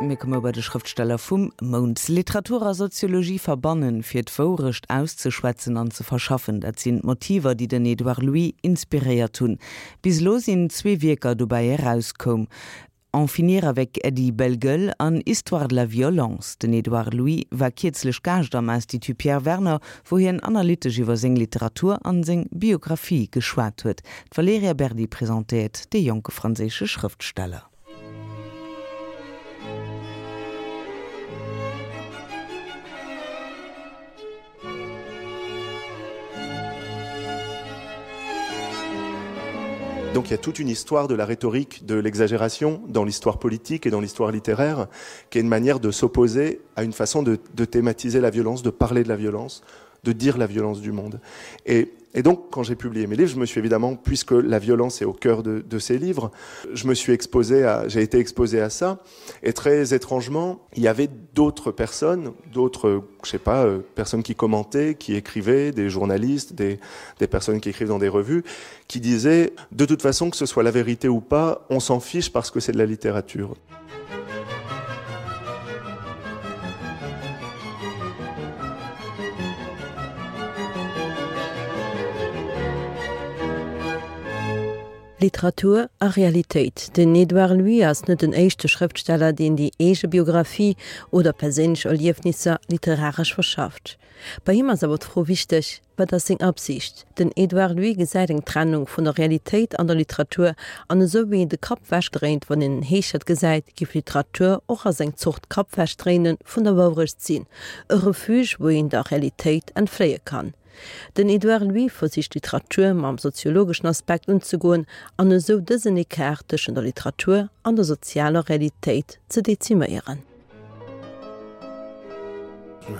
Mir komme bei de Schrëftsteller vum Mount. Literatur a Soziologie verbannen, fir d'Wourecht auszeschwätzen an ze verschaffen, dat sinn d'Motiver, déi den Edouard Louis inspiréiert hunn. Bis elo sinn zwee Wierker dobäi erauskoum, En finir avec Eddy Bellegueule an Histoire de la violence. Den Edouard Louis war kierzlech Gaascht am Institut Pierre Werner, wou hien analytesch iwwer seng Literatur an seng Biographie geschwat huet. D'Valerija Berdi presentéiert dee jonke franséische Schrëftsteller. Donc il y a toute une histoire de la rhétorique de l'exagération dans l'histoire politique et dans l'histoire littéraire qui est une manière de s'opposer à une façon de, de thématiser la violence, de parler de la violence, de dire la violence du monde. Et, et donc quand j'ai publié mes livres, je me suis évidemment puisque la violence est au cœur de, de ces livres, je me suis exposé à j'ai été exposé à ça et très étrangement, il y avait d'autres personnes, d'autres je sais pas euh, personnes qui commentaient, qui écrivaient, des journalistes, des, des personnes qui écrivent dans des revues, qui disaient de toute façon que ce soit la vérité ou pas, on s'en fiche parce que c'est de la littérature. Literatur a Realitéit. Den Edouard Louis ass net den éischte Schrëftsteller, deen déi eege Biographie oder perséinlech Erliefnisser literaresch verschafft. Bei him ass awer d'Fro wichteg, Wat ass seng Absicht? Den Edouard Louis gesäit eng Trennung vun der Realitéit an der Literatur, an esou wéi een de Kapp wechdréint, wann een en Heeschert gesäit, géif Literatur och als eng Zort Kappwechdréine vun der Wourecht sinn, e Refuge, wou een der Realitéit entfléie kann. Den Edouard Louis versicht d'Literatur mam soziologeschen Aspekt unzegoen an esou dësen Ecart tëschent der Literatur an der sozialer Realitéit ze deziméieren.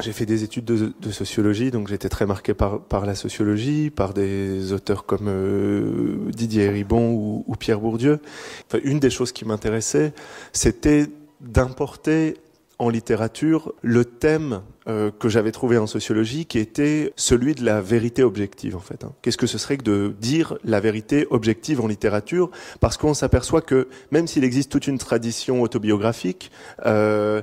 J'ai fait des études de, de sociologie, donc j'étais très marqué par, par la sociologie, par des auteurs comme euh, Didier Ribon ou, ou Pierre Bourdieu. Enfin, une des choses qui m'intéressait, c'était d'importer en littérature le thème euh, que j'avais trouvé en sociologie qui était celui de la vérité objective en fait qu'est-ce que ce serait que de dire la vérité objective en littérature parce qu'on s'aperçoit que même s'il existe toute une tradition autobiographique euh,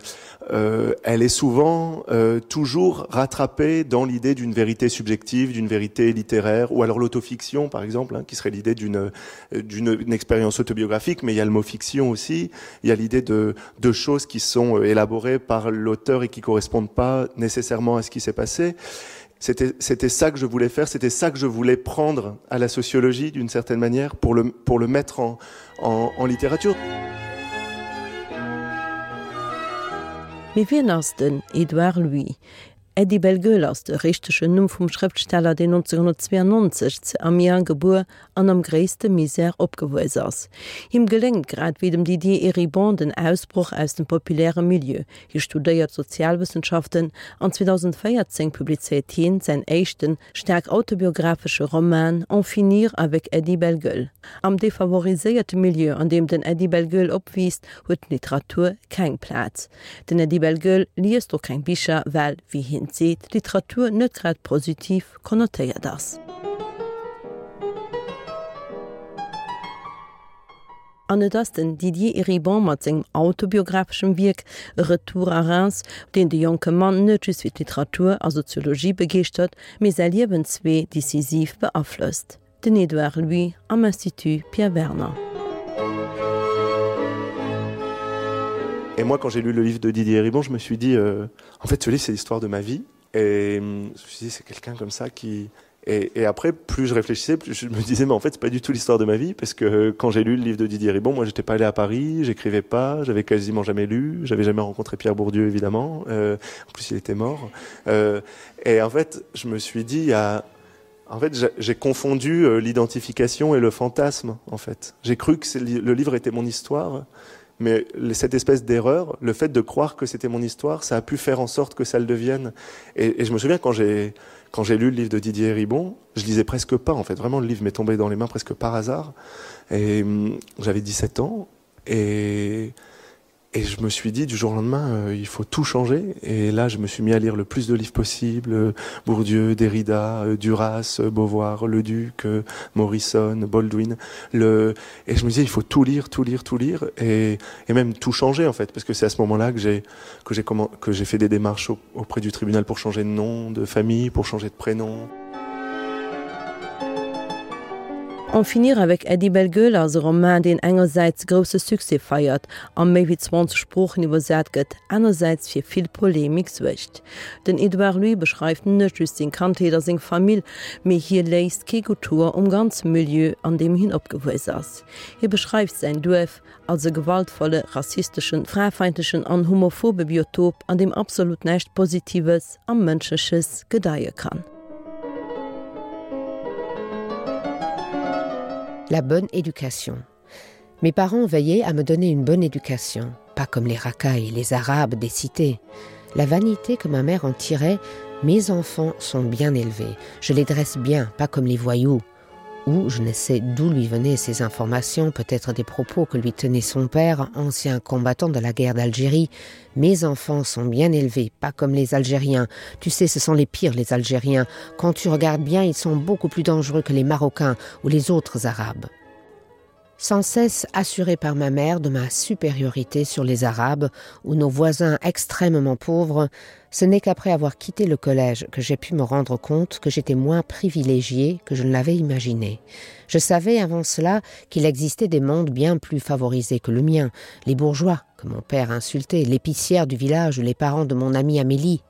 euh, elle est souvent euh, toujours rattrapée dans l'idée d'une vérité subjective d'une vérité littéraire ou alors l'autofiction par exemple hein, qui serait l'idée d'une euh, d'une expérience autobiographique mais il y a le mot fiction aussi il y a l'idée de de choses qui sont euh, élaborées par l'auteur et qui correspondent pas nécessairement à ce qui s'est passé c'était c'était ça que je voulais faire c'était ça que je voulais prendre à la sociologie d'une certaine manière pour le pour le mettre en en, en littérature Mee wien ass den Edouard Louis? Eddy Bellegueule ass de richtegen Numm vum Schrëftsteller, deen 1992 zu Amiens gebuer an am gréisste Misär opgewuess ass. Him geléngt, grad wéi dem Didier Eribon, den Ausbroch aus dem populäre Milieu. Hie studéiert Sozialwëssenschaften an 2014 publizéiert hien säin éischten, staark autobiographesche Roman En finir avec Eddy Bellegueule. Am defavoriséierte Milieu, an deem den Eddy Bellegueule opwiisst, huet d'Literatur keng Plaz. Den Eddy Bellegueule liest och keng Bicher, well, wéi hien seet, d'Literatur net grad positiv konnotéiert ass. An et ass den Didier Eribon mat sengem autobiographeschem Wierk Retour à Reims, deen de jonke Mann net just fir d'Literatur a Soziologie begeeschtert, mee säi Liewenswee decisiv beaflosst. Den Edouard Louis am Institut Pierre Werner. Et moi quand j'ai lu le livre de Didier Eribon, je me suis dit euh, en fait ce livre c'est l'histoire de ma vie et je me suis dit c'est quelqu'un comme ça qui Et, et après plus je réfléchissais plus je me disais mais en fait c'est pas du tout l'histoire de ma vie parce que euh, quand j'ai lu le livre de Didier Ribon moi j'étais pas allé à Paris j'écrivais pas j'avais quasiment jamais lu j'avais jamais rencontré Pierre Bourdieu évidemment euh, en plus il était mort euh, et en fait je me suis dit à en fait j'ai confondu euh, l'identification et le fantasme en fait j'ai cru que le livre était mon histoire mais cette espèce d'erreur le fait de croire que c'était mon histoire ça a pu faire en sorte que ça le devienne et, et je me souviens quand j'ai quand j'ai lu le livre de Didier Ribon je lisais presque pas en fait vraiment le livre m'est tombé dans les mains presque par hasard et j'avais 17 ans et. Et je me suis dit du jour au lendemain euh, il faut tout changer et là je me suis mis à lire le plus de livres possible euh, Bourdieu, Derrida, euh, Duras, euh, Beauvoir, Le Duc, euh, Morrison, Baldwin le et je me disais il faut tout lire, tout lire, tout lire et, et même tout changer en fait parce que c'est à ce moment-là que j'ai que j'ai comment que j'ai fait des démarches auprès du tribunal pour changer de nom de famille, pour changer de prénom. En finir avec Eddie Bellegueule ass e Roman, deen engersäits grousse Succès feiert a méi wéi 20 Sproochen iwwersat gëtt, anersäits fir vill Polemik suergt. Den Edouard Louis beschreift net just seng Kandheet a seng Famill, mee hie léisst kee gutt Hoer um ganze Milieu, an deem hien opgewuess ass. Hie beschreift säin Duerf als e gewaltvolle, rassisteschen, fraefeindlechen an homophobe Biotop, an deem absolut näischt Positives a Mënschleches gedeie kann. La bonne éducation. Mes parents veillaient à me donner une bonne éducation, pas comme les racailles, les arabes des cités. La vanité que ma mère en tirait, mes enfants sont bien élevés, je les dresse bien, pas comme les voyous ou je ne sais d'où lui venaient ces informations, peut-être des propos que lui tenait son père, ancien combattant de la guerre d'Algérie. Mes enfants sont bien élevés, pas comme les Algériens. Tu sais, ce sont les pires les Algériens. Quand tu regardes bien, ils sont beaucoup plus dangereux que les Marocains ou les autres Arabes sans cesse assuré par ma mère de ma supériorité sur les Arabes ou nos voisins extrêmement pauvres, ce n'est qu'après avoir quitté le collège que j'ai pu me rendre compte que j'étais moins privilégié que je ne l'avais imaginé. Je savais avant cela qu'il existait des mondes bien plus favorisés que le mien, les bourgeois que mon père insultait, l'épicière du village ou les parents de mon amie Amélie.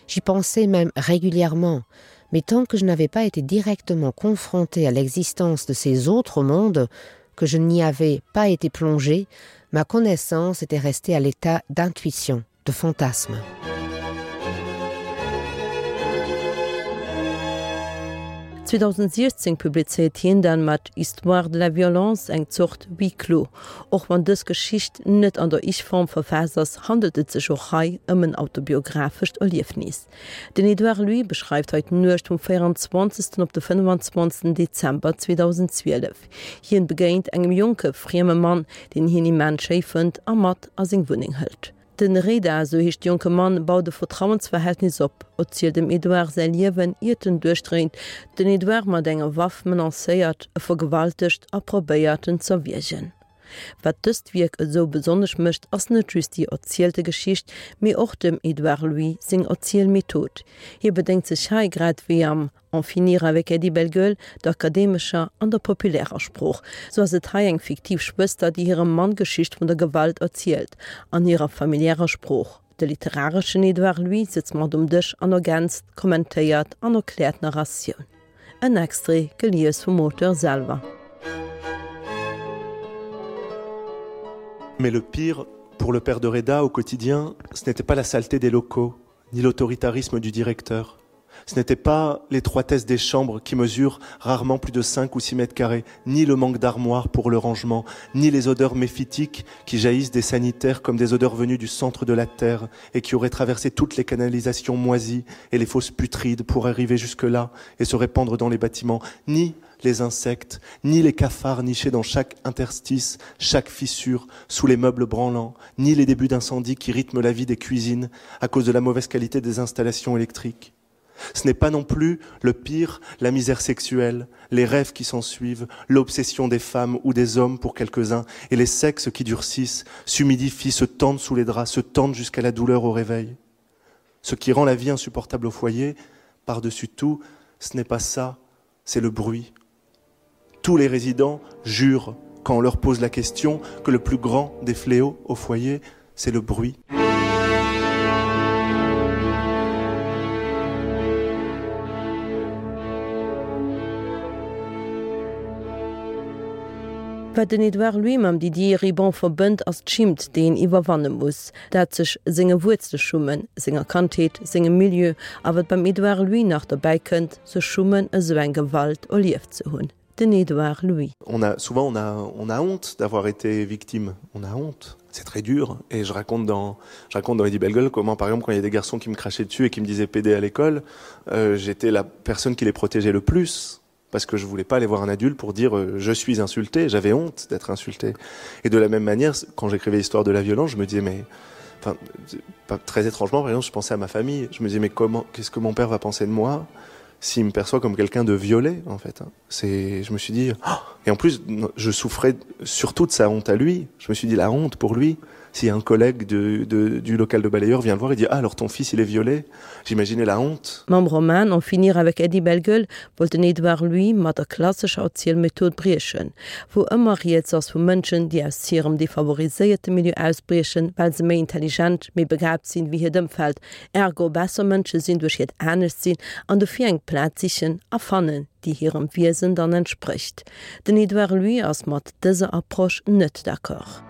J'y pensais même régulièrement, mais tant que je n'avais pas été directement confronté à l'existence de ces autres mondes, que je n'y avais pas été plongé, ma connaissance était restée à l'état d'intuition, de fantasme. 2016 publizéiert hien dann mat Histoire de la violence eng Zort Huis clos. Och wann dës Geschicht net an der Ich-Form verfaasst ass, handelt et sech och hei ëm en autobiographescht Erliefnis. Den Edouard Louis beschreift hei d'Nuecht vum 24. Op de 25. Dezember 2012. Hien begéint engem jonke frieme Mann, deen hien immens schéi fënnt a mat a seng Wunneng hëlt. Den Reda, esou heescht de jonke Mann, baut e Vertrauensverhältnis op, erzielt dem Edouard säi Liewen, iert en duerchdréint, den Edouard mat enger Waff menacéiert, e vergewaltegt a probéiert en z'erwiergen. Wat dëst Wierk esou besonnesch mécht, ass net just déi erzielte Geschicht, mee och dem Edouard Louis seng Erzielmethod. Hie bedéngt sech hei, grad wéi am En finir avec Eddie Bellegueule, der akademescher an der populärer Sprooch. Sou ass et hei eng fiktiv Schwëster, déi hirem Mann d'Geschicht vun der Gewalt erzielt, an hirer familiärer Sprooch. De literareschen Edouard Louis sëtzt mat um Dësch an ergänzt, kommentéiert an erkläert d'Narratioun. En Extrait, gelies vum Auteur selwer. Mais le pire pour le père de Reda au quotidien, ce n'était pas la saleté des locaux, ni l'autoritarisme du directeur. Ce n'était pas l'étroitesse des chambres qui mesurent rarement plus de 5 ou 6 mètres carrés, ni le manque d'armoires pour le rangement, ni les odeurs méphytiques qui jaillissent des sanitaires comme des odeurs venues du centre de la terre et qui auraient traversé toutes les canalisations moisies et les fosses putrides pour arriver jusque là et se répandre dans les bâtiments, ni les insectes, ni les cafards nichés dans chaque interstice, chaque fissure, sous les meubles branlants, ni les débuts d'incendie qui rythment la vie des cuisines à cause de la mauvaise qualité des installations électriques. Ce n'est pas non plus le pire, la misère sexuelle, les rêves qui s'en suivent, l'obsession des femmes ou des hommes pour quelques-uns et les sexes qui durcissent, s'humidifient, se tendent sous les draps, se tendent jusqu'à la douleur au réveil. Ce qui rend la vie insupportable au foyer, par-dessus tout, ce n'est pas ça, c'est le bruit. Tous les résidents jurent, quand on leur pose la question, que le plus grand des fléaux au foyer, c'est le bruit. Wat den Edouard Louis mam Didier Ribon verbënnt, ass d'Schimmt, déi een iwwerwanne muss, dat sech senge Wuerzele schummen, senger Kandheet, sengem Milieu, a wat beim Edouard Louis nach dobäi kënnt, sech schummen, esou eng Gewalt erlieft ze hunn. Den Edouard Louis. On a souvent on a on a honte d'avoir été victime, on a honte. C'est très dur et je raconte dans je raconte dans Eddie Bellegueule comment par exemple quand il y a des garçons qui me crachaient dessus et qui me disaient PD à l'école, euh, j'étais la personne qui les protégeait le plus. Parce que je voulais pas aller voir un adulte pour dire euh, je suis insulté, j'avais honte d'être insulté. Et de la même manière, quand j'écrivais l'histoire de la violence, je me disais mais enfin, pas, très étrangement, par exemple, je pensais à ma famille, je me disais mais comment qu'est-ce que mon père va penser de moi s'il me perçoit comme quelqu'un de violé en fait c'est je me suis dit oh et en plus je souffrais surtout de sa honte à lui je me suis dit la honte pour lui si un collègue de, de, du local de balayeur vient le voir et dit ah, alors ton fils il est violé j'imaginais la honte Mam Roman En finir avec Eddie Bellegueule wollt den Edouard Louis mat der klassescher Erzielmethod briechen, wou ëmmer rieds ass vu Mënschen, déi aus hirem defavoriséierte Milieu ausbriechen, well se méi intelligent, méi begaabt sinn wéi hiert Ëmfeld, ergo besser Mënsche sinn duerch hiert Anescht-Sinn an dofir eng Plaz sichen a fannen, déi hirem Wiesen dann entsprécht. Den Edouard Louis ass mat dëser Approche net d'accord.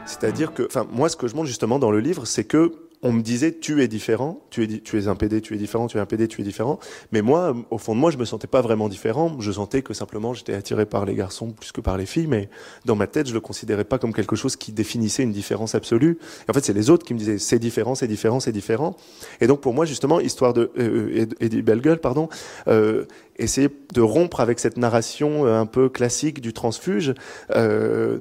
C'est-à-dire que enfin moi ce que je montre justement dans le livre c'est que on me disait tu es différent tu es tu es un PD tu es différent tu es un PD tu es différent mais moi au fond de moi je me sentais pas vraiment différent je sentais que simplement j'étais attiré par les garçons plus que par les filles mais dans ma tête je le considérais pas comme quelque chose qui définissait une différence absolue et en fait c'est les autres qui me disaient c'est différent c'est différent c'est différent et donc pour moi justement histoire de euh, Eddie Bellegueule pardon euh, essayer de rompre avec cette narration euh, un peu classique du transfuge euh,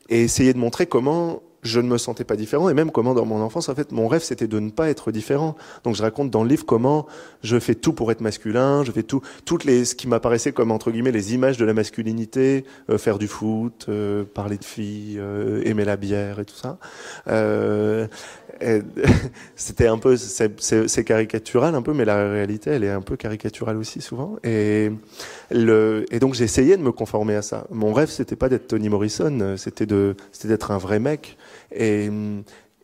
et essayer de montrer comment je ne me sentais pas différent et même comment dans mon enfance en fait mon rêve c'était de ne pas être différent donc je raconte dans le livre comment je fais tout pour être masculin je fais tout toutes les ce qui m'apparaissait comme entre guillemets les images de la masculinité euh, faire du foot euh, parler de filles euh, aimer la bière et tout ça euh, c'était un peu c'est caricatural un peu mais la réalité elle est un peu caricaturale aussi souvent et le et donc j'ai essayé de me conformer à ça mon rêve c'était pas d'être Tony Morrison c'était de c'était d'être un vrai mec et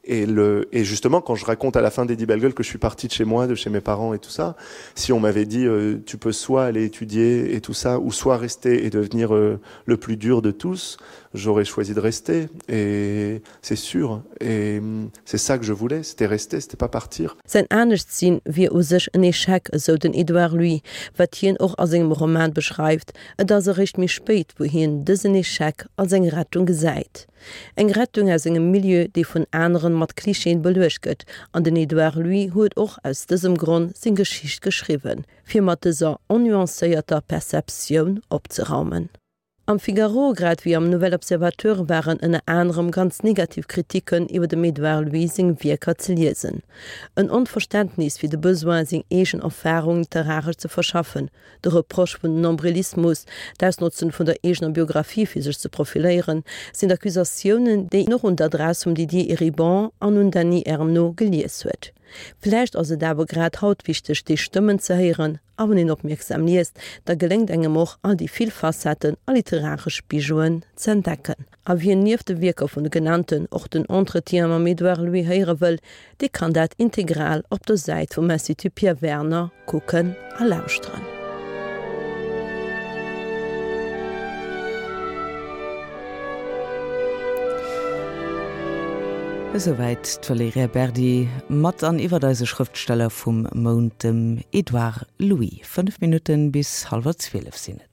et le et justement quand je raconte à la fin d'Eddie Bellegueule que je suis parti de chez moi de chez mes parents et tout ça si on m'avait dit euh, tu peux soit aller étudier et tout ça ou soit rester et devenir euh, le plus dur de tous j'aurais choisi de rester et c'est sûr et c'est ça que je voulais c'était rester c'était pas partir Säin Aneschtsinn wier u sech en Echec, esou den Edouard Louis, wat hien och a sengem Roman beschreift. Et ass eréischt méi spéit, wou hien dësen Echec als eng Rettung gesäit. Eng Rettung aus engem Milieu, dee vun aneren mat Klischeeën beluecht gëtt, an den Edouard Louis huet och aus dësem Gronn seng Geschicht geschriwwen, fir mat dëser onnuancéierter Perceptioun opzeraumen. Am Figaro, grad wéi am Nouvel Observateur waren ënner anerem ganz negativ Kritiken iwwer dem Edouard Louis seng Wierker ze liesen. En Onverständnis fir de Besoin, seng eegen Erfarung literaresch ze verschaffen, De Reproche vun Nombrilismus, d'Ausnotzen vun der eegener Biographie fir sech ze profiléieren, sinn d'Accusatiounen, déi een och un d'Adress vum Didier Eribon an un Dany Ernault gelies huet. Vläicht ass et awer grad haut wichteg, déi Stëmmen ze héieren, a wann een opmierksam liest, da geléngt engem och, all déi vill Facetten a literaresch Bijouen ze entdecken. A wien nieft de Wierker vun de genannten och den Entretien mam Edouard Louis héiere wëll, dee kann dat integral op der Säit vum Institut Pierre Werner kucken a lauschteren. Esouwäit d'Valerija Berdi mat an iwwert eise Schrëftsteller vum Mount, dem Edouard Louis. 5 Minutten bis hallwer 12 sinn et.